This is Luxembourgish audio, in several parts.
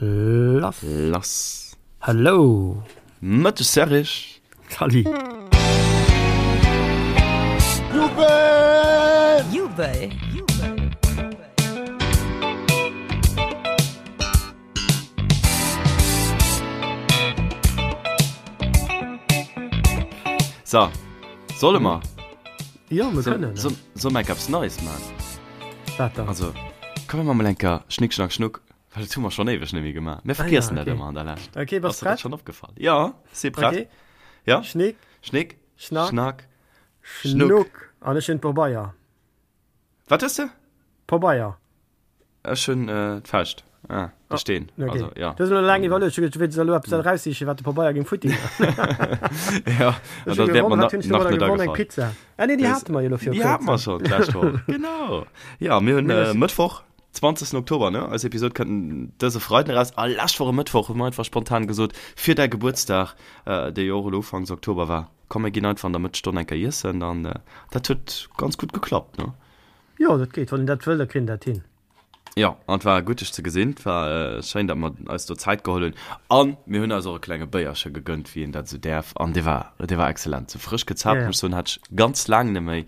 Lass. Lass. Hello. Mëtteg Serrig. Salut. Jubel! Jubel! So, solle mer? Jo, mir kënnen. So, solle mer enk eppes Neies man? Wat dann? Also, komm mir man mol enker Schnick, Schnack, Schnuck, well dat hu mer schonn éiweg net méi gemaach. Mir vergiessen Ah ja, dat okay. ëmmer an der Lescht. Okay, bass Ass der dat prett? schonn opgefall? Ja, si prett. Okay. Ja? Schnick, Schnick, Schnack, Schnack, Schnuck. Schnuck. An ech hunn d'Pobeier. Wat hues de? Pobeier. Ech hunn d'Fauscht. Ah, de Steen. Okay. Also, ja. Du hues elo laang iwwerluecht. Ech hu geduecht, du wéilts elo eppes eraussichen, wat de Pabeier géing futti. Ja, Ech an hu dat wäert gewonnen. mer Wat hunn ech nach domadder net gewonnen? Eng agefall. Pizza. Ah nee, déi hate mer jo elo viru Déi hate mer kuerzem. schonn d'lescht Woch. Genau. Ja, mir hunn Mir äh, Mëttwoch, 20. Oktober, ne? Eis Episod kënnt dëse Freiden eraus. A lescht Woch e Mëttwoch hu mer einfach spontan gesot, fir däi Gebuertsdag, äh, dee jo och elo Ufanks Oktober war, komm mir ginn einfach an der Mëttesstonn eng Kéier iessen. An äh, dat huet ganz gutt geklappt, ne? Jo, dat geet. Wann een dat wëll, da kritt een dat hin. Jo, an et war gutt dech ze gesinn. Et war schéin, datt mer eis do Zäit geholl hunn. An mir hunn eis och e klenge Béierche gegënnt, wéi een dat esou däerf. An dee war, dee war excellent. Sou frësch gezaapt, muss ech soen, hat ech ganz laang net méi,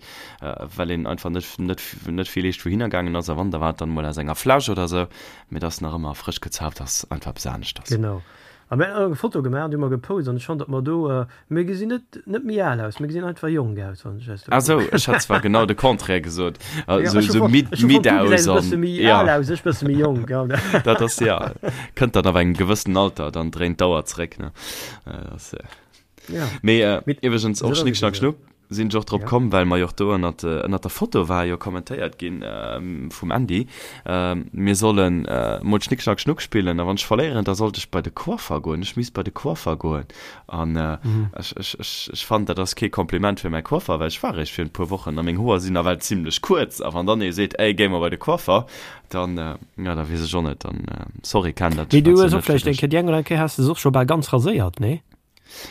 well een einfach net, net, net vill eescht wouhinner gaangen ass. A wann, da war et dann emol aus enger Fläsch oder sou. Mee et ass nach ëmmer frësch gezaapt ass einfach eppes aneschters. Genau. A mir hunn och eng Foto gemaach an déi hu mer gepost an ech fannen, datt mer do, mir gesinn net, net méi al aus, mir gesinn einfach jonk aus, wann ech eis do Ah sou, kucken. ech hat zwar genau de Contraire gesot, Ja, sou, ech hu sou fonnt, midd, ech hu midd fonnt, du aus gesäis e an, bësse méi ja. al aus, ech bësse méi jonk, ja. Dat ass, ja, kënnt dann ab engem gewëssenen Alter, dann dréint d'Auer zréck, ne. Dat ass, Ja. Mee Mee iwwregens och esou ass Schnick et Schnack jo. Schnuck sinn ech och drop Ja. komm, well mer jo och do ënnert, ënnert der Foto war jo kommentéiert ginn vum Andy, mir sollen mol Schnick Schnack Schnuck spillen a wann ech verléieren, da sollt ech bei de Coiffer goen, ech misst bei de Coiffer goen an ech, ech, ech, ech fannen dat ass kee Kompliment fir mäi Coiffer, well ech war eréischt virun e puer Wochen a meng Hoer sinn nawell zimlech kuerz a wann dann ee seet, ey géi mer bei de Coiffer, dann, jo da weess ech och net, dann sorry Ken, dat Mee du war hues zwar och net fir vläicht eng dech. Kéier, déi eng oder aner Kéier has de se och scho bal ganz raséiert, nee?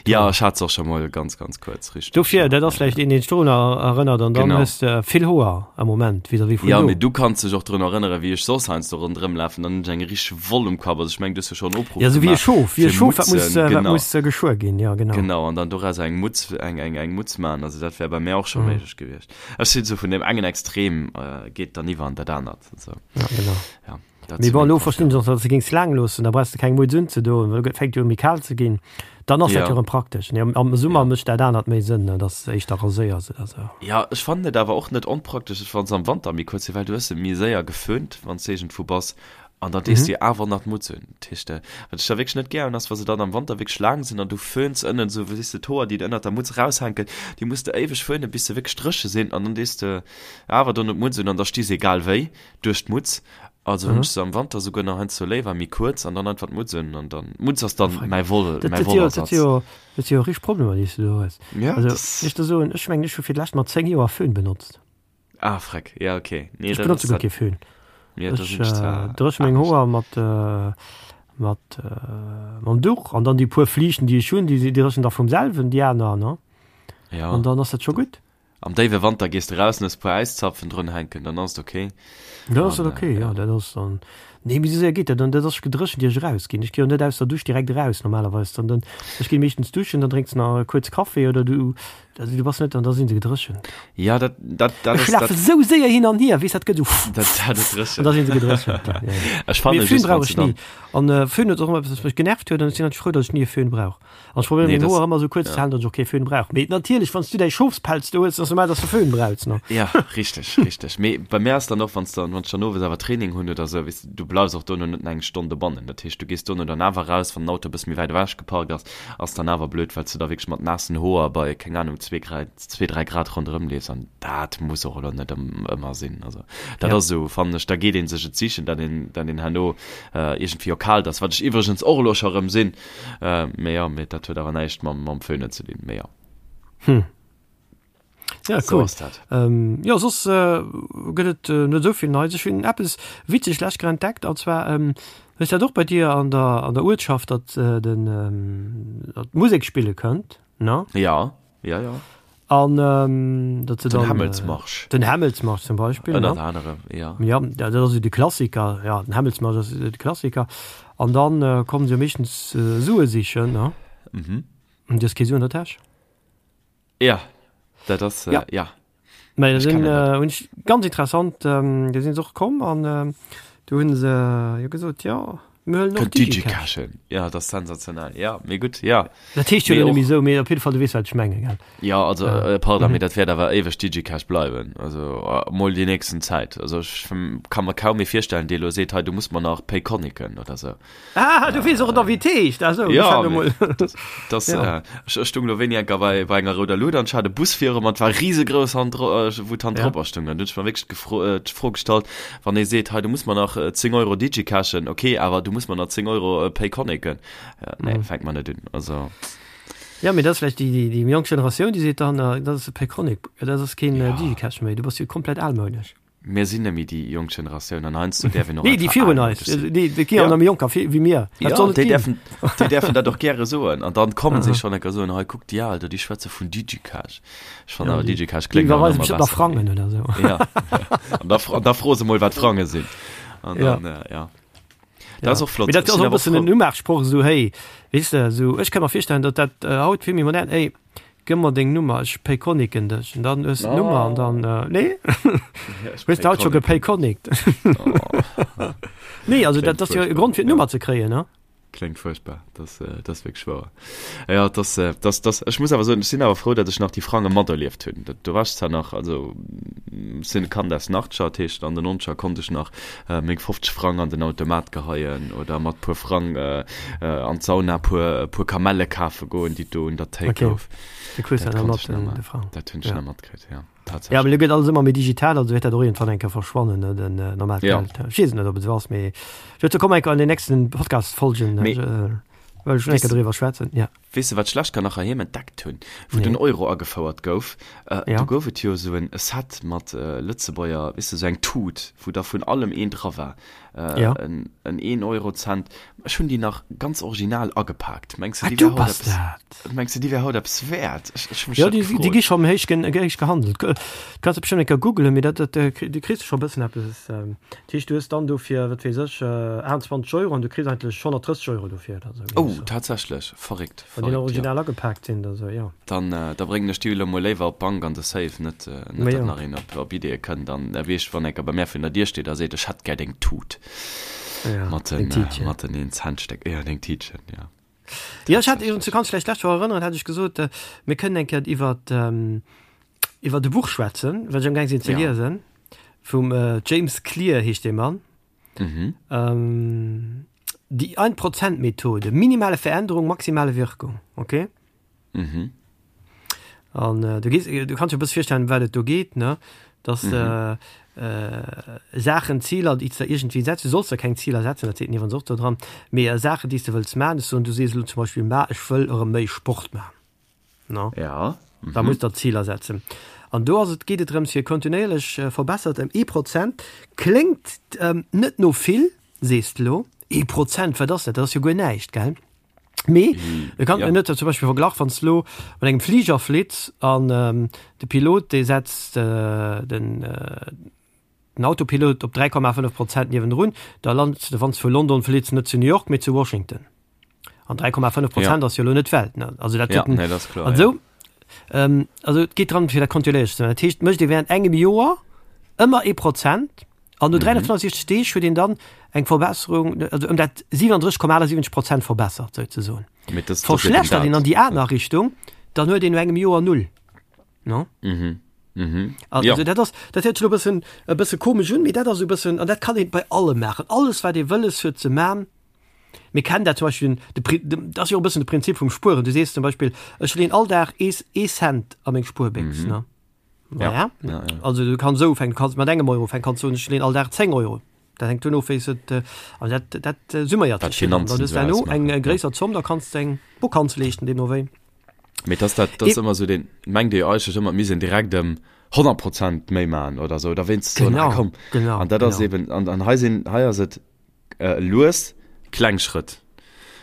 Ja, ech hat se och scho mol ganz, ganz kuerz, richteg. Dofir, ja, dat ass ja, vläicht een, deen dech dorun erënnert an dann Genau. hues de vill Hoer am Moment vis-à-vis vun Ja, do. mee du kanns dech och drun erënneren, wéi ech soss heiansdo ronderëm lafen, dann hunn ech eng richteg Woll um Kapp. Also ech mengen, du hues jo schonn Opruff Ja, sou wéi e gemaach Schof, wéi e fir Schof, wat muss, Mutzen, wat genau. muss geschuer ginn, ja genau. Genau, an dann doraus eng Mutz, eng, eng, eng Mutz maachen. Also dat wär bei mär och scho Mhm. méiglech gewiescht. Ech sinn sou vun deem engen Extrem, geet dann iwwer an dat anert, sou. Ja, genau. Ja. Dat Mee zu bon, mengem elo verstinn Coiffeur. ech och, datt s de géings laang loossen, da brauchs de keng Mutz unzedoen, well et fänkt jo u méi kal ze ginn. Dann ass dat Ja. jo erëm praktesch. Nee, am, am Summer Ja. mécht dat anert méi Sënn, ne, datt s de éischter raséiers oder sou. Ja, ech fannen et awer och net onpraktesch, wann se am Wanter méi kuerz sinn, well du hues se méi séier geföhnt, wann s de iergendwou bass, an dann dees du jo awer nach d'Mutz un. Dat heescht, wat ech da wierklech net gär hunn, ass, wa se dann am Wanter wierklech laang sinn an du föhns ënnen esou, weess de, d'Hoer, déi ënnert der Mutz eraushänken, déi muss de éiweg föhnen, bis se wierklech dréche sinn, an dann dees de awer dono d'Mutz un an da sti se egal wéi duerch d'Mutz. Also hunn ech se am Wanter souguer nach heiansdo léiwer méi kuerz an dann einfach d'Mutz un an dann d'Mutz ass dann mäi Woll, Dat mäi dat jo dat Wollersatz. jo dat si jo richteg Problemer déi s du do hues. Ja, Also das ech der soen, ech mengen ech hu fir d'lescht mat 10 Joer Föhn benotzt. Ah freck, ja okay. Nee, Ech dat benotze ass guer dat kee Föhn. Ja, da Ech sinn ech zwar dréche meng anescht. Hoer mat mat mam Duch an dann déi puer Fliichten déi ech hunn, déi dréchen da vum selwen déi aner ne. Ja. An dann ass dat scho gutt. Am déiwe Wanter gees de raus an hues e puer Äiszapfen drun hänken, dann ass et ok. Dann ass An, dat ok, jo, ja. dat ass dann. Nee, mee esou séier geet dat dann, dat ass gedréchent ier ech erausginn. Ech gi jo net aus der Dusch direkt eraus normalerweis, dann dann ech ginn meeschtens duschen, dann drénks nach kuerz Kaffi oder du, also du bass net, an da sinn se gedréchent. Ja, dat, dat, dat Ech ass, dat, lafe sou séier hin an hier, weess dat gëtt esou dat, dat et an dréchent. da sinn se gedréchent, ja, ja, ja. Ech fanne Mee Föhn just, brauch wann s ech de dann. ni. An Föhn huet och ëmmer eppes, wat mech genervt huet an ech sinn eigentlech frou, datt ech ni e Föhn brauch. An ech probéieren Nee, meng das, Hoer ëmmer esou kuerz ze ja. halen, datt ech och kee Föhn brauch. Mee natierlech, wann s du däi Schofspelz do hues, ass normal, datt s de Föhn brauchs, ne? Ja, richteg, richteg. Mee bei mär ass dann och, wann s dann, wann ech dann owes awer Training hunn oder esou, weess de, du bleifs och dono net nach eng Stonn dobannen. Dat heescht, du gees dono dann awer raus, wann den Auto e bësse méi wäit ewech geparkt ass, ass dann awer blöd, well s du da wierklech mat naassen Hoer bei, keng Anung, zwee Grad, zwee, dräi Grad ronderëm leefs an dat muss och elo net ëmmer sinn. Also dat Ja. ass esou, fannen ech, da geet ee sech et sichen, datt een, datt een herno iergendwéi jo kalt ass, wat ech iwwregens och elo scho erëm sinn. Äh, mee ja, mee dat huet awer näischt mam, mam Föhnen ze dinn, mee ja. Hm. Ja, So cool. ass dat. Ähm, jo, soss äh, gëtt et äh, net esou vill Neies. Ech hunn eppes witzeg lech grad entdeckt, an zwar ähm, hues dat och bei dir an der, an der Uertschaft, datt äh, den ähm, datt d'Musek spille kënnt, ne? Ja, ja, ja. An ähm, datt se Den dann äh, Hämmelsmarsch. den Hämmelsmarsch zum Beispill, Ënnert ne? anerem, ja. Ja, dat ass esou de Klassiker, ja, den Hämmelsmarsch ass de Klassiker. An dann kommen se jo meeschtens Sue sichen, ne? Mhm. An du hues kee Su an der Täsch. Ja, dat ass, Ja. ja. Mä da Ech sinn, kennen dat. hunn ech, ganz interessant, do sinn se och komm an do hunn se jo gesot, jo, mir huelen och Kënnt DigiCash. DigiCashen. Ja, dat ass sensationell. Ja, mee gutt, ja. Dat heescht jo Mee elo net och. méi esou, mee op jidde Fall, du weess, wat ech mengen, gell? Ja, also, pardon, mee dat wäert awer éiweg DigiCash bleiwen. Also, mol déi nächsten Zäit. Also, ech ka mer kaum ee virstellen, dee elo seet, hei, du muss mer nach Payconiqen oder esou. Ah, du weess och nach wéi et heescht. Ah sou, Ja, ech hat emol. Das, das, Ja. äh, ech, ech stung lo wéini enker bei, bei enger rouder Luut an ech hat e Bus viru mer, et war risegrouss Hand, äh, wou d'Hand Ja. dropper stung. An du hunn ech mer wierklech d'Gefro, äh, d'Fro gestallt, wann ee seet, hei du muss mer nach äh, 10 Euro digicashen, okay, awer du muss mer nach 10 Euro äh, payconiqen. Ja, nee, Mhm. fänkt mer net un. Also, Ja, mee dat ass vläicht déi, déi, déi jonk Generatioun, déi seet dann, äh, dat ass e Payconiq, dat ass keen äh, Ja. Digicash méi, du bass jo komplett almounesch. Mir sinn net méi déi jonk Generatioun an heiansdo däerf een och Nee, déi einfach virun almounesch eis. sinn. Déi, déi gi Ja. nach méi jonker wéi mir. Dat Ja, soll et déi ginn. däerfen, déi däerfen dat och gäre soen. An dann kommen se schonn enker soen, hei kuck déi al do, déi schwätze vun Digicash. Ech fannen Ja, awer déi, Digicash déi kléngt awer iwwerweise nach bestimmt emmer nach besser. Frangen oder sou. Ja, an da, an da froe se mol, wat Frange sinn. An Ja. dann, äh, ja. Dat Ja. ass och flott. Mee dat Ech ass sinn och e awer bëssen en frou. Umaachsproch, esou, hey, weess de, esou, ech ka mer virstellen, datt dat haut vill méi modern, ey, Gëmm mer deng Nummer, ech payconiquen dech. An dann hues de d'Nummer an dann, äh, nee? Hues de haut scho gepayconiqt? Nee, also dat ass jo e Grond fir d'Nummer ze kréien, ne? Kléngt fuerchtbar, dat dat ass wierklech wouer. Ja, dat dat dat ech muss awer soen, ech sinn awer frou, datt ech nach déi Frange materlieft hunn. Dat do war ech zwar nach, also sinn e Kand aus den Achtscher, dat heescht an den Nonzeger konnt ech nach meng 50 Frang an den Automat geheien oder mat puer Frang an d'Sauna puer puer Kamelle kafe goen, déi et do un der Théik Okay. gouf. Du kriss Dat dat konnt ech mat nach den ma de Frang. dat hunn ech Ja. nach matkritt, ja, Ja, tatsächlech. mee lo gëtt alles ëmmer méi digital, also wäert dat och iergendwann eng Kéier verschwannen, ne, den normaalt Ja. Geld. Ech weess et net, ob et esou ass, mee dozou komme mer eng Kéier an den nächsten Podcast-Folgen, Mee wëll ech schon eng weess Kéier de, driwwer schwätzen, ja. weess de, wat ech lescht Kéier nach heiheem entdeckt hunn, wou den Nee. Euro agefouert gouf? Do Ja. gouf et jo esou en Set mat Lëtzebuerger, weess de, esou eng Tut, wou da vun allem een dra war. Ja. En Een-Euro-Cent. Ech hunn déi nach ganz original agepaakt. Mengs de, Ah, déi du wär haut bass eppes, dat! mengs de, déi wär haut eppes wäert? Ech, ech hu mech Jo, dat déi, déi gefrot. gi schonn héich, héich gehandelt. Du kanns se bestimmt eng Kéier googelen, mee dat, dat, du kriss scho e bëssen eppes. Dat heescht, du hues dann dofir, wat weess ech, 28 Euro an du kriss eigentlech 130 Euro dofir oder esou. Oh, tatsächlech? Verréckt, Wann déi nach verréckt, jo. original agepaakt sinn oder esou, jo. Dann, da bréngen ech déi elo mol léiwer op d'Bank an de Safe, net, net Ma datt jo. nach een op, op Ideeë kënnt an weess, wann enker bei mär virun der Dier steet a seet, ech hätt gär deng Tut Ja, mat deng den, Tiitchen. mat den Een-Cent-Stéck, jo, deng Tiitchen, jo. Jo, ech hat, du Tatsächlech. kanns dech vläicht d'lescht Woch erënneren, hat ech gesot, mir kënnen eng Kéier iwwert, iwwert e Buch schwätzen, wat ech amgaang sinn ze Ja. liesen, vum James Clear heescht dee Mann. Mhm. Ähm, Die Ein-Prozent-Methode, minimale Veränderung, maximale Wirkung, okay? Mhm. An äh, du, gees, du kannst dir e bësse virstellen, wat et do geet, ne? Dass Mhm. äh, äh, Saachen, Ziler, déi s de iergendwéi setz, du solls der keng Ziler setzen, dat seet en iwwerens och do dran, mee äh, Saachen, déi s de wëlls maachen, ech soen, du sees elo zum Beispill, ma ech wëll erëm méi Sport maachen, ne? Ja. Da Mhm. muss der Ziler setzen. An do ass et, geet et drëms fir kontinuéierlech äh, verbessert ëm ee Prozent. Kléngt ähm, net no vill, sees de lo, ee Prozent, wat ass dat? Dat ass jo guer näischt, gell? Mee e kann Ja. net zum Beispill verglach, wann s lo mat engem Fliger flitt an ähm, de Pilot dee setzt äh, den, äh, den Autopilot op 3,5 Prozent niewendrun, da land de wann s vu London flitts net zu New York, mee zu Washington. An 3,5 Prozent Ja. ass jo lo net d'Welt, ne? Also dat Ja, huet en, nee, dat ass kloer, an ja. sou, ähm, also et geet dran fir dat kontinuéierlech ze maachen. Dat heescht, mécht ee während engem Joer ëmmer ee Prozent, An no 365 Deeg huet een dann eng Verbesserung, also ëm dat 37,78 Prozent verbessert, souzesoen. Mee das, das Verschlechtert een an déi aner Richtung, dann huet een no engem Joer null. No? Mhm. Mhm. Also Ja. dat ass, dat héiert sech elo e bëssen, e bësse komesch un, mee dat ass e bëssen, an dat kann een bei allem maachen. Alles wat ee wëlles huet ze man, mir kennen dat zum Beispill, de Pri, de, dat ass jo och e bëssen de Prinzip vum Spueren. Du sees zum Beispill, ech leeën all Dag ee, ee Cent a meng Spuerbéchs, ne? Ja. Ja. Ja, ja. Also du kanns esou ufänken, du kanns mat engem Euro ufänken, kanns soen, ech leen all Dag 10 Euro. Dat hänkt duerno of, wéi s et, äh, also dat, dat äh, summéiert Wat sech jo dann. d'Finanzen Dann hues esou du herno ausmaachen, eng äh, ja. gréisser Zomm, da kanns de eng Vakanz leeschten, deemno wéi. Mee dass dat, dat ass E ëmmer esou deen, mengt Dir eigentlech ëmmer, mir sinn direkt ëm 100 Prozent méi maachen oder esou, oder wéinst soen, ah Genau, komm. genau, An dat ass genau. eben, an, an hei sinn, hei ass et äh, lues kleng Schrëtt,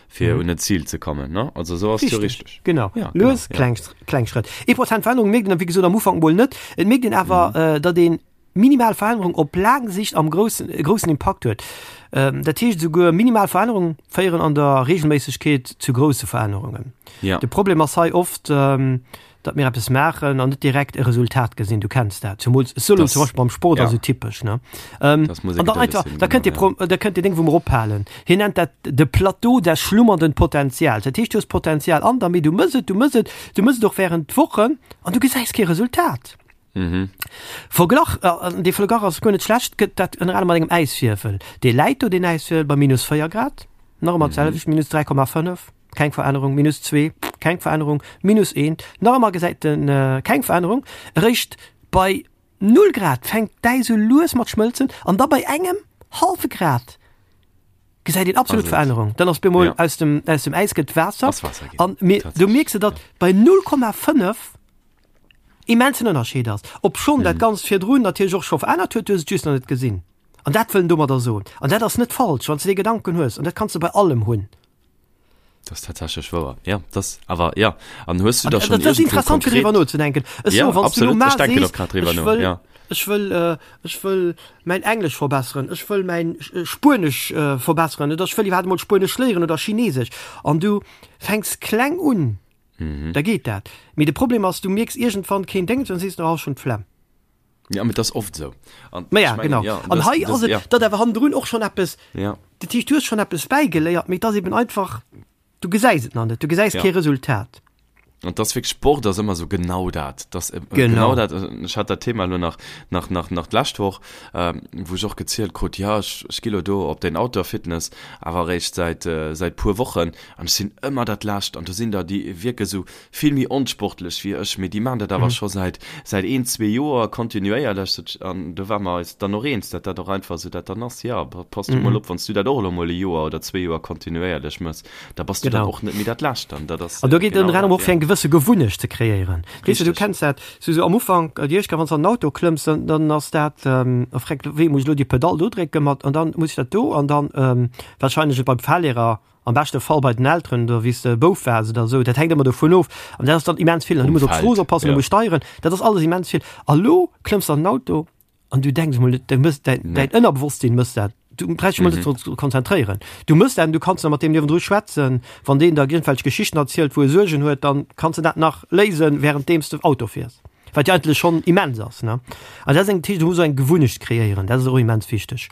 fir Mhm. un en Zil ze kommen, ne? Also esou ass et jo Richtig, richteg. genau. Ja, genau, Lues ja. kleng, kleng Schrëtt. Ee Prozent Verännerung mierkt een, wéi gesot, am Ufank mol net. Et mierkt een awer, Mhm. äh, datt een. minimal Verännerung op laang Sicht am groussen, e groussen Impakt huet. Dat heescht esouguer minimal Verännerungen féieren an der Regelméissegkeet zu grousse Verännerungen. Ja. De Problem ass hei oft, datt mir eppes maachen an net direkt e Resultat gesinn. Du kenns dat, zumools solo zum Beispill beim Sport ass ja. esou typesch, ne? Ähm, Das muss an dann einfach, sinn, da kënnt genau, dir, da kënnt dir Ding wou mer ophalen. Hien nennt dat de Plateau des schlummernden Potenzials. Dat heescht, du hues Potenzial an der, mee du mëss et, du mëss et, du mëss et och während Wochen an du gesäis kee Resultat. Mhm. Verglach, an dee Verglach ass guer net schlecht, gëtt dat ënner anerem mat engem Äiswierfel. Dee läit do, deen Äiswierfel, bei minus 4 Grad, nach ëmmer d'selwecht, minus 3,5, keng Verännerung, minus 2, keng Verännerung, minus 1, nach ëmmer gesäit en keng Verännerung. Eréischt bei 0 Grad fänkt d'Äis u lues mat schmëlzen an da bei engem hallwe Grad gesäit een absolut Verännerung. Dann ass bemol aus dem, aus dem Äis gëtt Waasser. An du mierks de, datt bei 0,5 immensen Ënnerscheed ass, obschonn dat Ganzt virdrun natierlech och scho verännert huet, du hues et just nach net gesinn. An dat wëll en domadder soen. An dat ass net falsch, wann s de dee Gedanken hues, an dat kanns de bei allem hunn. Dat ass tatsächlech wouer, jo. Dat ass awer, jo. An hues du An da schonn dat ass iergendwou interessant, fir konkret. driwwer nozedenken. Ech Ja, soen, wann s du elo absolut, mar ech denken sees, och grad driwwer ech no, wëll, ja. ech wëll, ech wëll mäin Englesch verbesseren, ech wëll mäin Spuenesch verbesseren oder ech wëll iwwerhaapt emol Spuenesch léieren oder Chinesesch, an du fänks kleng un, Mhm. Da geet dat. Mee de Problem ass, du mierks iergendwann keen Déngens an sees du, oh, ech hunn d'Flemm. Ja, mee dat ass oft esou. An Ma ja, ech mengen, genau. ja, An das, hei das, ass et, ja. datt awer hannendrun och schonn eppes, Ja. dat heescht, du hues schonn eppes bäigeléiert, mee et ass eben einfach, du gesäis et nach net, du gesäis Ja. kee Resultat. An das wierklech, Sport ass ëmmer esou genau dat. Das, äh, Genau. genau dat. Ech hat dat Thema elo nach, nach, nach, nach d'lescht Woch, ähm, wou ech och gezielt krut, ja, ech, ech gi lo do op den Outdoor-Fitness, awer eréischt säit, äh, säit puer Wochen. An ech sinn ëmmer dat Lescht an do sinn der, déi wierke sou vill méi onsportlech wéi ech, mee déi maachen dat awer scho säit säit een, zwee Joer kontinuéierlech. An do ware mer eis dann och eens, datt dat och einfach esou dat dann ass, Jo, pass du mol op, wann s du dat och elo mol e Joer oder zwee Joer kontinuéierlech mëss, da bass du dann och net méi dat Lescht. An dat ass An do geet et genau ënner anerem dat, och fir jo. eng gewësse Gewunnecht ze kreéieren. Weess de, du Richteg. kenns dat, sou sou am Ufank, déi éischt Kéier, wann s de an den Auto klëmms, dann dann ass dat, oh freck, wéi muss ech elo déi Pedall do drécken mat an dann muss ech dat do an dann warscheinlech et beim Fahrlehrer, am beschte Fall bei den Elteren oder wéi s de Bouf waars oder esou, dat hänkt ëmmer dovun of. An dat ass dann immens vill. An du Um muss op Feld, d'Strooss oppassen, du ja. muss steieren, dat ass alles immens vill. A lo klëmms de an den Auto an du denks emol net, du mëss däin, Nee. däin Ënnerbewosstsinn mëss dat. Du brauchst dech mol net Mhm. drop ze konzentréieren. Du mëss dat an du kanns nach mat deem niewendru schwätzen. Wann deen der iergendwelch Geschichten erzielt, wou e Suergen huet, dann kanns de dat nach léisen, wärenddeems de Auto fiers. Wat jo eigentlech schonn immens ass, ne? An dat ass eng, dat heescht, du muss och eng Gewunnecht kreéieren, dat ass och immens wichteg.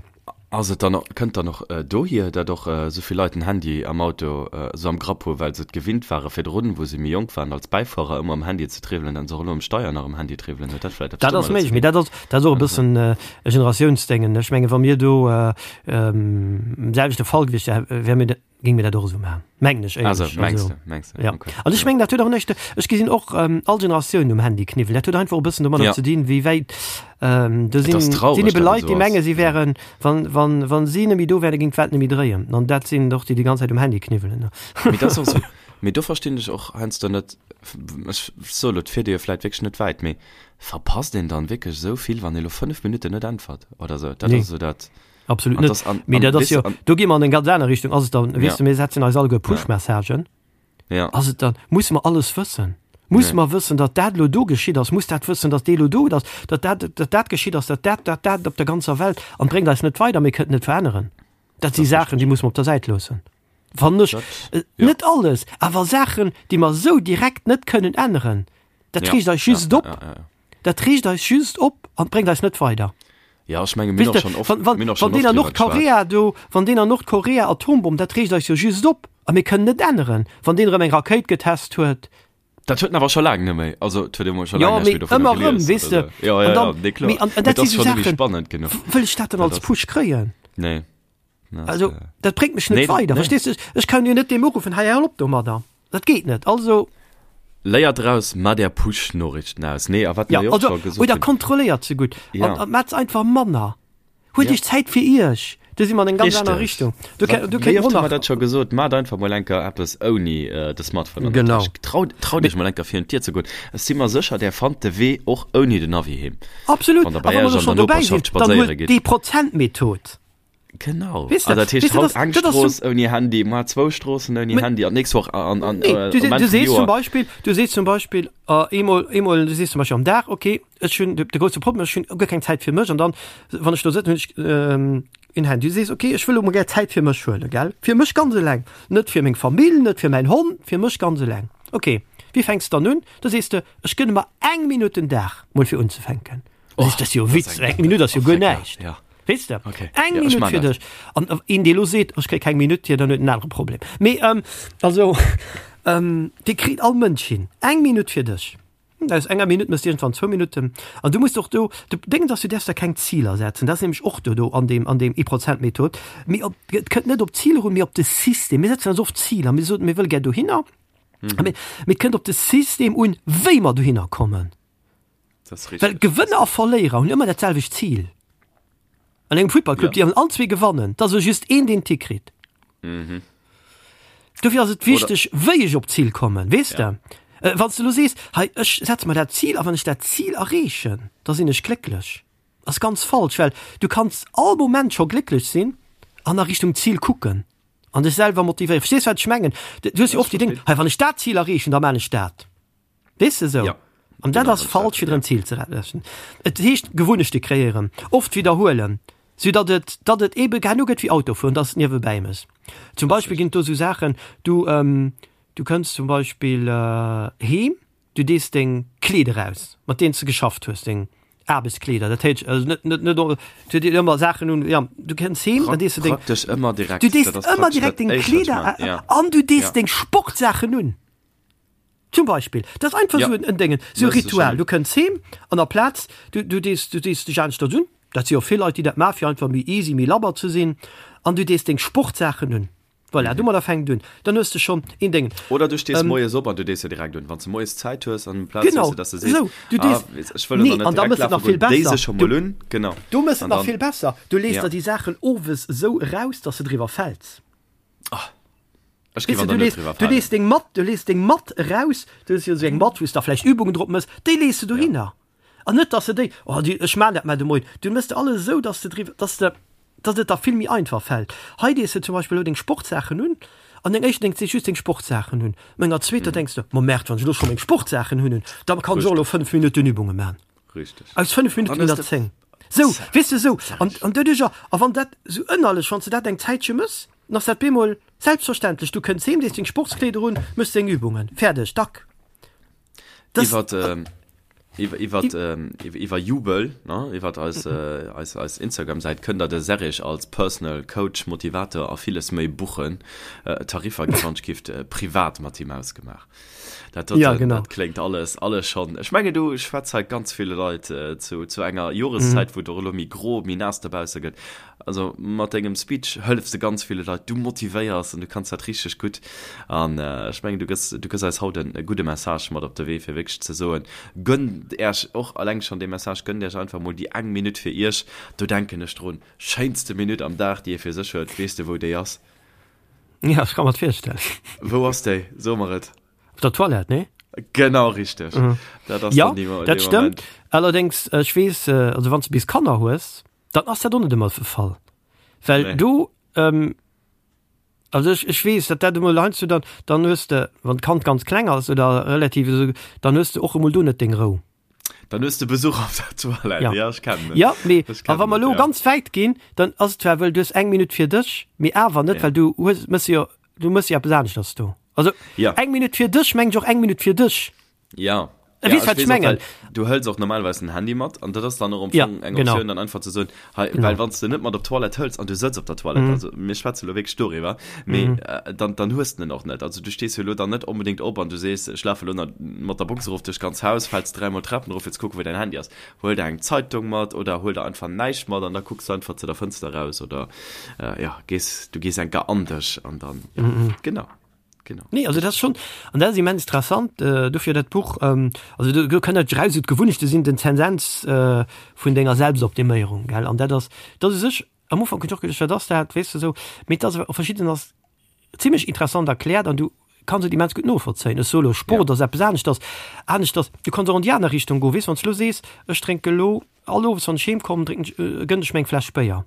Ass et dann och, kënnt dann och dohier, dat och esou vill Leit den Handy am Auto esou am Grapp hu well se et gewinnt ware virdrun, wou se méi jonk waren, als Bäifuerer ëmmer um Handy ze triwwelen, an se och elo um Steier nach um Handy triwwelen? Huet dat vläicht eppes Dat ass domadder ze méiglech, mee dinn? dat ass, dat ass och e bëssen e Generatiounsdéngen. Ech mengen, wa mir do am selwechte Fall gewiescht wären, wäre mir, Géing mir dat och esou maachen, mengen ech Also, éierlech. mengs Also, de, mengs de, ja. okay. An ech Ja. mengen, dat huet och näischt, ech gesinn och ähm, all Generatiounen um Handy kniwwelen. Dat huet einfach e bëssen domadder Ja. ze dinn, wéi wäit ähm, do Et ass sinn, traureg, sinn ebe dat et Leit, esou déi ass. menge si Ja. wären, wann, wann, wann si net méi do wären, géing d'Welt net méi dréien. An dat sinn och déi, déi ganz Zäit um Handy kniwwelen, ne. Mee dat ass och esou, mee do verstinn ech och heiansdo net, ech soe lo, et fiert ee jo vläit wierklech net wäit, mee verpasst een dann wierklech esou vill, wann ee lo 5 Minutten net äntwert oder esou? Dat Nee. ass esou dat. Absolut An net. das, an, Mee an, dat ass weess jo, de, an, do gi mer an eng ganz aner Richtung. Ass et dann, weess ja, de, mir setzen eis alleguer ja, Push-Messagen. ja, Ass et dann, musse mer alles wëssen? Musse nee. mer wëssen, datt dat elo do geschitt ass? Muss dat wëssen, datt dee elo do ass, datt dat, datt dat geschitt ass, datt dat, dat, dat op der ganzer Welt? An bréngt eis net weider, mir kënnen et net veränneren. Dat si Dat ass Saachen, déi richteg. musse mer op der Säit loossen. Fannen ech. Dat, Äh, ja, Net alles, awer Saachen, déi mer esou direkt net kënnen änneren, dat ja, reegt eis ja, just ja, op. ja, ja. Dat reegt eis just op an bréngt eis net weider. Ja, ech menge mir Weess hunn och de, schonn oft, wann, wann, mir hunn och wann schonn deen oft an driwwer geschwat. Nordkorea do, wann deen an Nordkorea Atombomm, dat reegt eis jo just op a mir kënnen net änneren, wann deen erëm eng Rakéit getest huet. Dat huet en awer scho laang net méi, also et huet ee mol scho Jo, laang näischt mee méi dovunner ëmmer erëm, gelies weess oder de. sou. Jo, An jo, jo, dann, nee, kloer. mee an, an Mee dat et si ass sou schonn net méi Saachen, spannend genuch. wëll ech dat dann Dat als ass, Push kréien? nee, dat, Also, dat bréngt mech net nee, weider, nee. verstees de? Ech kann jo net deem uruffen, hei, hal op domadder. Dat geet net. Also. Léier draus, mat är Push-Noriichten aus. Nee, a wat Ja, mer jo och also, scho gesot oder hunn. kontrolléiert se gutt. Ja. An, an maacht se einfach manner. Huelt Ja. iech Zäit fir iech. Do si mer an eng ganz aner Richteg. Richtung. Do Wat, ké, do wéi kéint oft hu mer mer nach. dat scho gesot, Maacht einfach mol enker eppes ouni de Smartphone an der Genau. Täsch. Traut, traut iech mol enker virun d'Dier ze goen. Ech si mer sécher, där fannt de Wee och ouni den Navi heem, Absolut. wann der A bei wa mer iech elo an schonn der dobäi sinn, Noperschaft dann spadséiere huelt gitt. déi Prozentmethod. Genau. Weess de, Ah, dat heescht weess de, haut dat, eng dat ass Strooss zum, ouni Handy, mar zwou Stroossen ouni Mä, Handy an d'nächst Woch an, an, nee, äh, du, um du Enn vum sees zum Joer. Beispill, du sees zum Beispill, äh, eemol, eemol, du sees zum Beispill am Dag, okay, ech hunn de, de grousse Problem, ech hunn guer keng Zäit fir mech an dann, wann ech do sëtzen, hunn ech ähm, en Handy. Du sees, okay, ech wëll elo mol gär Zäit fir mech huelen, gell? Fir mech ganz eleng, net fir meng Famill, net fir mäin Hond, fir mech ganz eleng. Okay, wéi fänks de dann un? Da sees de, ech gënne mer eng Minutt den Dag mol fir unzefänken. Oh, Dat ass jo dat ass Witz, eng eng Minutt ass jo oh, guer lecker, näischt. ja. Weess de? Okay. Eng Ja, ech Minutt man fir dat. dech. An äh, een, dee lo seet, ech kréie keng Minutt hier, dann huet en anere Problem. Mee ähm, also ähm, dee kritt all Mënsch hin. Eng Minutt fir dech. Aus enger Minutt mëss iergendwann zwou Minutten. An du muss och do, de Déngens ass, du däerfs der keng Ziler setzen. Dat ass nämlech och do do an deem, an deem Ee-Prozent-Method. Mee op, et kënnt net op d'Ziler un, mee op de System. Mir setzen eis oft Ziler. Mir soen, mir wëlle gär dohinner. Mhm. Mee, mee et kënnt op de System un, wéi mer dohinner kommen. Das ist Well richtig. Gewënner a Verléierer hunn ëmmer dat selwecht Zil. An engem Futtballclub, Ja. déi all zwee gewannen, et ass elo just een, deen d'Tick kritt. Mhm. Dofir ass et wichteg, wéi ech op d'Zil kommen, weess Ja. de? Äh, wann s de elo sees, hei ech setze mer dat Zil a wann ech dat Zil erreechen, da sinn ech glécklech, ass ganz falsch, well du kanns all Moment scho glécklech sinn an a Richtung Zil kucken an dech selwer motivéieren. Verstees wat ech mengen? Du hues jo oft déi Déng, hei wann ech dat Zil erreechen, da maan ech dat. Weess de esou? Ja. An dat Genau, ass falsch, fir en Zil ze errechen. Et heescht Gewunnechte kreéieren, oft widderhuelen, sou datt et, datt et ebe herno gëtt wéi Autofueren, datt et niewebäi mëss. Zum Beispill ginn et do esou Saachen, du, du kënns zum Beispill heem, du dees deng Kleeder aus, mat deenen s de geschafft hues, deng Aarbechtskleeder, dat heescht also net, net, net, du dees ëmmer Saachen un, ja, du kënns heem, dann dees du deng, Praktesch ëmmer direkt. du dees Dat ass ëmmer praktesch direkt dat deng Éischt, wat ech Kleeder man, ja. an du dees Ja. deng Sportsaachen un. Zum Beispill, dat ass einfach Ja. esou en Déngen, esou e Mëss de Ritual. schonn. Du kënns heem an aplaz, du, du dees, du dees dech aneschters un, dat si jo vill Leit, déi dat maachen, fir einfach méi easy, méi labber ze sinn, an du dees deng Sportsaachen un. Voilà, domadder fänkt et un. Dann hues de schonn een Déngen. Oder du stees Ähm, moies op an du dees se direkt un. Wann s de moies Zäit hues an amplaz Genau, hues de, dass de sees, esou, du ah, dees, weess, ech wëll elo nee, nach net an da direkt mëss et lafe nach vill goen, déi besser. se scho Du, mol un, genau. du mëss et An nach dann, vill besser, du lees ja. der déi Saachen owes esou eraus, dass de driwwer fäls. Ah. Ech géif Weess an de, der du net lees, driwwer du falen. lees deng Matt, du lees deng Matt eraus, du hues jo esou eng Matt, wou s de da vläicht Übungen drop mëss, déi lees de Ja. dohinner. An net, dass de déi, oh déi, ech maan dat mar de Moien, du mëss de alles esou, dass de driwwer, dass de, dass et der vill méi einfach fält. Hei dees de zum Beispill elo deng Sportsaachen un, an deng éischter denks de just deng Sportsaachen un, an enger zweeter denks de, ma Merde, wann ech elo scho meng Sportsaachen hunn, da kann ech och elo Richteg. 5 Minutten Übunge man. Richteg. Aus 5 Minutten Dann ginn hues der de 10. Sou, weess de, sou. An, an doduercher, a wann dat sou ënnerlech, wann s de dat eng Zäitche mëss, dann ass dat bemol selbstverständlech. Du kënns heem, dees deng Sportskleeder un, mëss deng Übungen, fäerdeg, dack. Das, Iwwert, ähm, iwwer, iwwert, ähm, iwwer, iwwer Jubel, ne, iwwert eis, äh, eis, eis Instagram-Säit kënnt der de Serrig als Personal Coach, Motivator a villes méi buchen. Äh, Tariffer gi wann gift äh, privat mat him ausgemaach. Dat, dat, Ja, dat, genau. dat kléngt alles, alles schon. Ech menge du schwätz hei ganz ville Leit äh, zu, zu enger Joreszäit, wou et och elo méi gro, méi naass dobausse gëtt. Also mat dengem Speech hëllefs de ganz ville Leit, du motivéiers an du kanns dat richteg gutt. An äh, ech mengen du gëss, du gëss eis haut en e gudde Message mat op de Wee fir wierklech ze soen, gönnt Äerch och alleng schon dee Message, gönnt Äerch einfach mol déi eng Minutt fir Iech. Do denken ech drun, schéinste Minutt am Dag déi ee fir sech huet, weess de wou déi ass? Ja, ech ka mer et virstellen. Wou ass déi? So mer et. Op der Toilette, nee? Genau richteg. Mhm. Dat ass Ja, dann dee, dat dee stëmmt. Moment. Allerdéngs, ech weess, also wann s de bis Kanner hues, dann ass dat och net ëmmer de Fall. Well Nee. do, ähm, also ech, ech weess, datt dat emol heiansdo dann, dann hues de, wann d'Kand ganz kleng ass oder relativ esou, dann hues de och emol do net deng Rou. Dann hues de Besuch op der Toilette. Ja. Ja, ech kennen et. Ja, mee Ech a kennen wa mer et, elo ja. ganz wäit ginn, dann ass et zwar wëll du hues eng Minutt fir dech, mee awer net, Ja. well du hues, mëss jo, du mëss jo eppes aneschters do. Also Ja. eng Minutt fir dech mengt ech och eng Minutt fir dech. Ja. Äh, Ja, weess ech wat ech weess och, mengen. well du hëls och normalerweis den Handy mat an dat ass dann och am Ja, Fong eng genau. Optioun, dann einfach ze soen, hei, Genau. well wann s de net mat op d'Toilette hëls an du sëtz op der Toilette, Mhm. also mir schwätze lo wierklech doriwwer, mee Mhm. äh, dann, dann hues de en och net. Also du stees jo lo dann net onbedéngt op an du sees, ech lafe lo nach mat der Box erof duerch d'ganz Haus, fäls dräimol d'Trapen erof fir ze kucken, wou däin Handy ass. Huel der eng Zeitung mat oder huel der einfach näischt mat an da kucks du einfach zu der Fënster raus oder äh, ja, gees, du gees enker an dech an dann, ja, Mhm. genau. Genau. Nee, also dat ass schon, an dat ass immens interessant, äh, dofir dat Buch, ähm, also do, do kënnt dat raus, esou d'Gewunnechte sinn den Zensens äh, vun denger Selbstoptiméierung, gell, an dat ass, dat ass u sech, am Ufank hunn ech och geduecht, wat ass dat, weess de esou, mee et ass awer op verschidden ass zimmlech interessant erkläert an du kanns et immens gutt novollzéien. Ech soe lo, Sport Ja. ass eppes aneschters, aneschters, du kanns och an déi aner Richtung goen, weess, wann s du lo sees, ech drénke lo all Owes, wann ech heem kommen, drénken ech, gënn ech mir eng Fläsch Béier.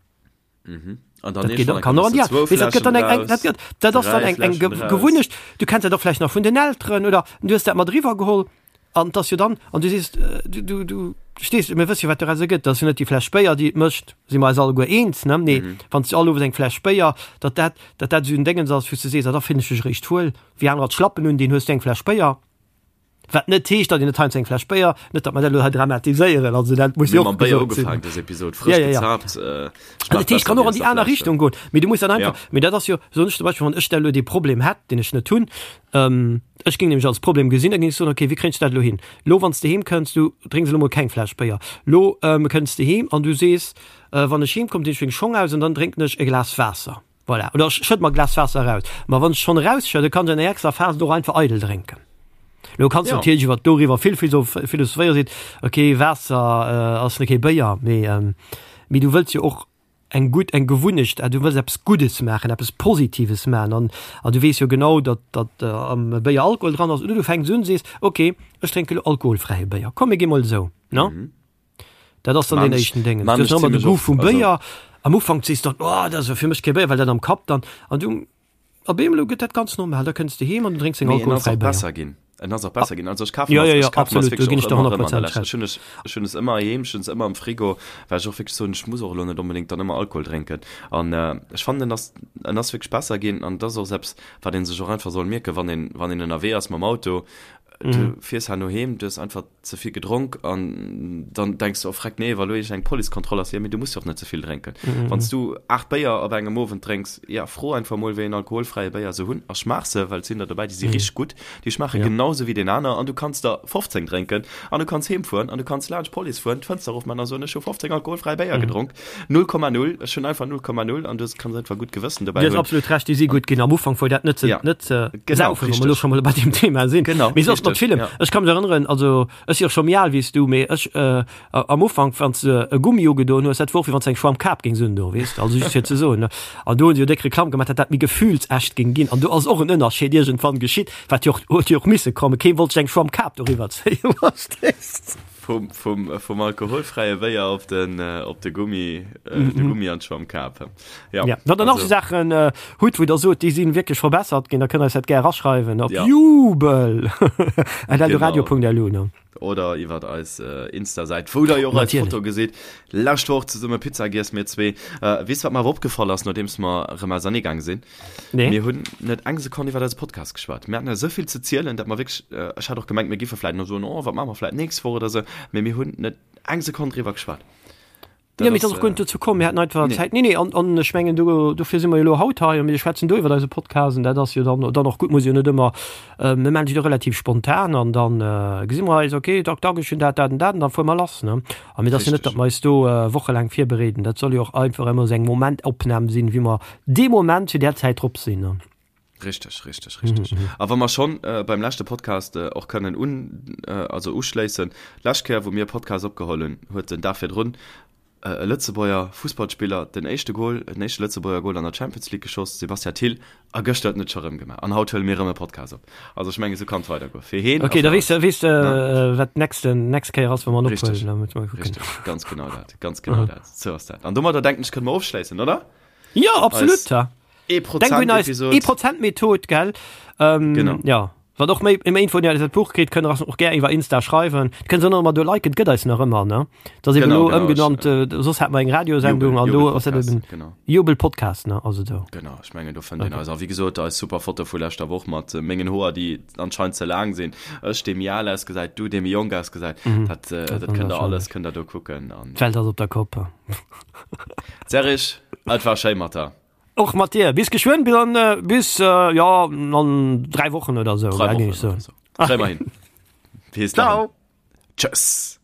Mhm. An dann dat geht, kann och, ja, weess, dat gëtt dann eng, eng, dat gëtt, dat ass dann eng, eng Gewunnecht. Du kenns dat och vläicht nach vun den Elteren oder du hues dat mat eriwwer geholl an dass jo dann an du sees du, du, du stees, mir wësse jo wat doraus ergëtt, dat ass jo net déi Fläsch Béier déi et mécht, si mer eis alleguer eens, ne? Nee, mhm. wann s du all Owes eng Fläsch Béier, datt dat, datt dat esou en Déngens ass, wou s du sees, ah, da fillen ech mech eréischt wuel, wéi anerer d'Schlappen un, deen hues du eng Fläsch Béier. Wat net heescht, datt een net heiansdo eng Fläsch Béier, net datt mer dat elo hei dramatiséieren, also dat muss jo och gesot sinn. Dës Episod frësch ja, ja, ja. gezaapt. Äh, dat heescht, kann och an déi aner Richtung goen. Mee du muss dann einfach, ja. mee dat ass jo, soen ech zum Beispill, wann ech da elo dee Problem hätt, deen ech net hunn, ähm, ech géing nämlech als Problem gesinn, da géing ech soen, okay, wéi kréien ech dat elo hin? Lo, wann s de heem kënns, du drénks elo mol keng Fläsch Béier. Lo ähm, kënns de heem an du sees, äh, wann ech heem komm, dinn ech meng Schong aus an dann drénken ech e Glas Waasser. Voilà. Oder ech schëdd mer e Glas Waasser eraus. Ma wann ech schonn erausschëdde, kann ech an enger extra Phas et och einfach eidel drénken. Lo kanns du ja. natierlech iwwer doriwwer vill philosophéieren, seet, okay, Waasser äh, ass net kee Béier, mee, ähm, mee du wëlls jo och eng gutt eng Gewunnecht, äh, du wëlls eppes Guddes maachen, eppes Positives maachen an, an du weess jo genau, datt datt äh, am Béier Alkohol dran ass, oder du fänks un, sees, okay, ech drénke lo alkoholfräie Béier, komm mir gi mol esou, ne? Mhm. Dat ass dann den éischten Déngen. Du hues ëmmer de Goût vum Béier. Am Ufank sees du dann, oh, dat ass jo fir mech kee Béier, well dat am Kapp dann. An du, op eemol gëtt dat ganz normal. Da kënns de heem an du drénks deng alkoholfräi Béier. Besser ginn. En ass och besser ginn. Also ech kafen ja, ja, ja, absolut, do ginn ech der 100 Prozent recht. Ech hunn es, ech hunn es ëmmer heem, ech hunn es ëmmer am Frigo, well ech och wierklech soen, ech muss och elo net onbedéngt dann ëmmer Alkohol drénken. An ech fannen, en ass, en ass wierklech besser ginn. An et ass och eppes, wat ee sech och einfach soll mierken, wann een, wann een ënnerwee ass mam Auto, du fiers herno heem, du hues einfach ze vill gedronk an dann denks du, oh freck, nee, wa lo iergend eng Policekontroll ass, jo, mee du muss jo och net ze vill drénken. Wann s du 8 Béier op engem Owend drénks, ja, fro einfach mol, wéi een alkoholfräie Béier se hunn a schmaach se, well et sinn der dobäi, déi si richteg gutt, déi schmaache genau sou wéi deen aner an du kanns der 15 drénken an du kanns heem fueren an du kanns laanscht d'Police fueren, d'Fënster erofman a soen, ech hu 15 alkoholfräi Béier gedronk, 0,0, ech hunn einfach 0,0 an du kanns einfach gutt Gewëssen dobäi hunn. Du hues absolut Recht, déi si gutt ginn. Am Ufank wor dat net ze, net ze saufen, wa mer elo scho mol bei deem Thema sinn. Genau, Mee soss mat villem. Ech ka mech erënneren, also ech si och scho méi al wéi s du, mee ech am Ufank, wann s de e Gummi ugedoen hues, dat wor och wéi wann s de eng Schwammkap géings undoen, weess de, also just fir ze soen, ne. An do hunn se jo déck Reklamm gemaach, datt dat méi gefühlsecht géing ginn. An do ass och en Ënnerscheed iergendwann geschitt, wat jo och, huet jo och misse kommen. Kee wollt sech eng Schwammkap doriwwer zéien, verstees de. Vum, vum, vum alkoholfräie Béier op den, op de Gummi, de Gummi an d'Schwammkap. Ja, ja. Wann der nach so Saachen äh, hutt, wou der sot, déi sinn wierklech verbessert ginn, da kënnt eis dat gär eraschreiwen op ja. jubel at eldoradio.lu. Ne? Oder iwwer eis äh, Insta-Säit, wou der jo och eis Foto gesitt. Lescht Woch zesumme Pizza giess, mir zwee. Äh, weess wat mer awer opgefall ass, nodeems mer erëm ausernee gaange sinn? Nee. Mir hunn net eng Sekonn iwwer eise Podcast geschwat. Mir haten esou vill ze zielen, dat mer wierklech, äh, ech hat och gemengt, mir giffe vläit nach soen, oh, wat maache mer vläit nächst Woch oder sou, mee mir hunn net eng Sekonn driwwer geschwat. Dat ja, mee ass och guer net dozou komm. Mir haten einfach nee. Zäit. Nee, nee, an, an ech mengen, do, dofir si mer jo elo haut hei a mir schwätzen do iwwer eise Podcast an dat ass jo dann, dann och gutt, muss jo net ëmmer, äh, mir maachen se jo relativ spontan an dann äh, gesi mer eis, okay, tak, tak, ech hunn dat, dat an dat an dann fuere mer lass, ne? A mir ass jo net, datt mer eis do äh, wochelaang virbereeden. Dat soll jo och einfach ëmmer esou eng Momentopnam sinn, wéi mer dee Moment zu där Zäit drop sinn, ne? Richteg, richteg, richteg. Mhm. A wa mer schonn äh, beim leschte Podcast äh, och kënnen un, äh, also uschléissen, lescht Kéier, wou mir e Podcast opgeholl hunn, huet den Dag virdrun äh, e Lëtzebuerger Fussballspiller den éischte Goal, den éischte Lëtzebuerger Goal an der Champions League geschoss, Sebastian Thill, a gëschter huet en et scho rëm gemaach. An haut huele mir rëm e Podcast op. Also ech mengen, esou kann et weidergoen. Fir heen a Okay, da fir weess de, eis. weess de, äh, wat d'nächste, nächst Kéier ass, wa mer en ophuelen. Richteg, Da musse mer kucken. richteg, ganz genau dat, ganz genau dat. Sou ass dat. An domadder denken ech, kënne mer ofschléissen, oder? Jo, absolut, Eis ja. Denk un eis Ee-Prozent-Method, gell? Ähm, genau. Ja. Wat och méi méi Info dat Buch kritt, kënnt och gär iwwer Insta schreiwen. Kënnt se ëmmer do liken, gëtt eis nach ëmmer ne. Dat eben lo ëmgenannt äh, soss hat mer eng Radiosendung an do ass eben genau. Jubel Podcast ne also do. Genau ech mengen do fënnt een eis. A wéi gesot eis super Foto vu leschter Woch mat äh, mengen Hoer déi anscheinend ze laang sinn. Ech dee méi al ausgesäit, du dee méi jonk ausgesäit. Mhm. Dat, äh, dat, dat kënnt der alles kënnt der do kucken. An D'Welt ass op der Kopp. Serge, et war schéi mat der. Och mat dir. Bis geschwënn, bis an, äh, bis, äh, ja, an 3 Wochen oder sou. 3 Wochen oder sou. Kréie mer hin. Bis dann. Ciao. Tschëss.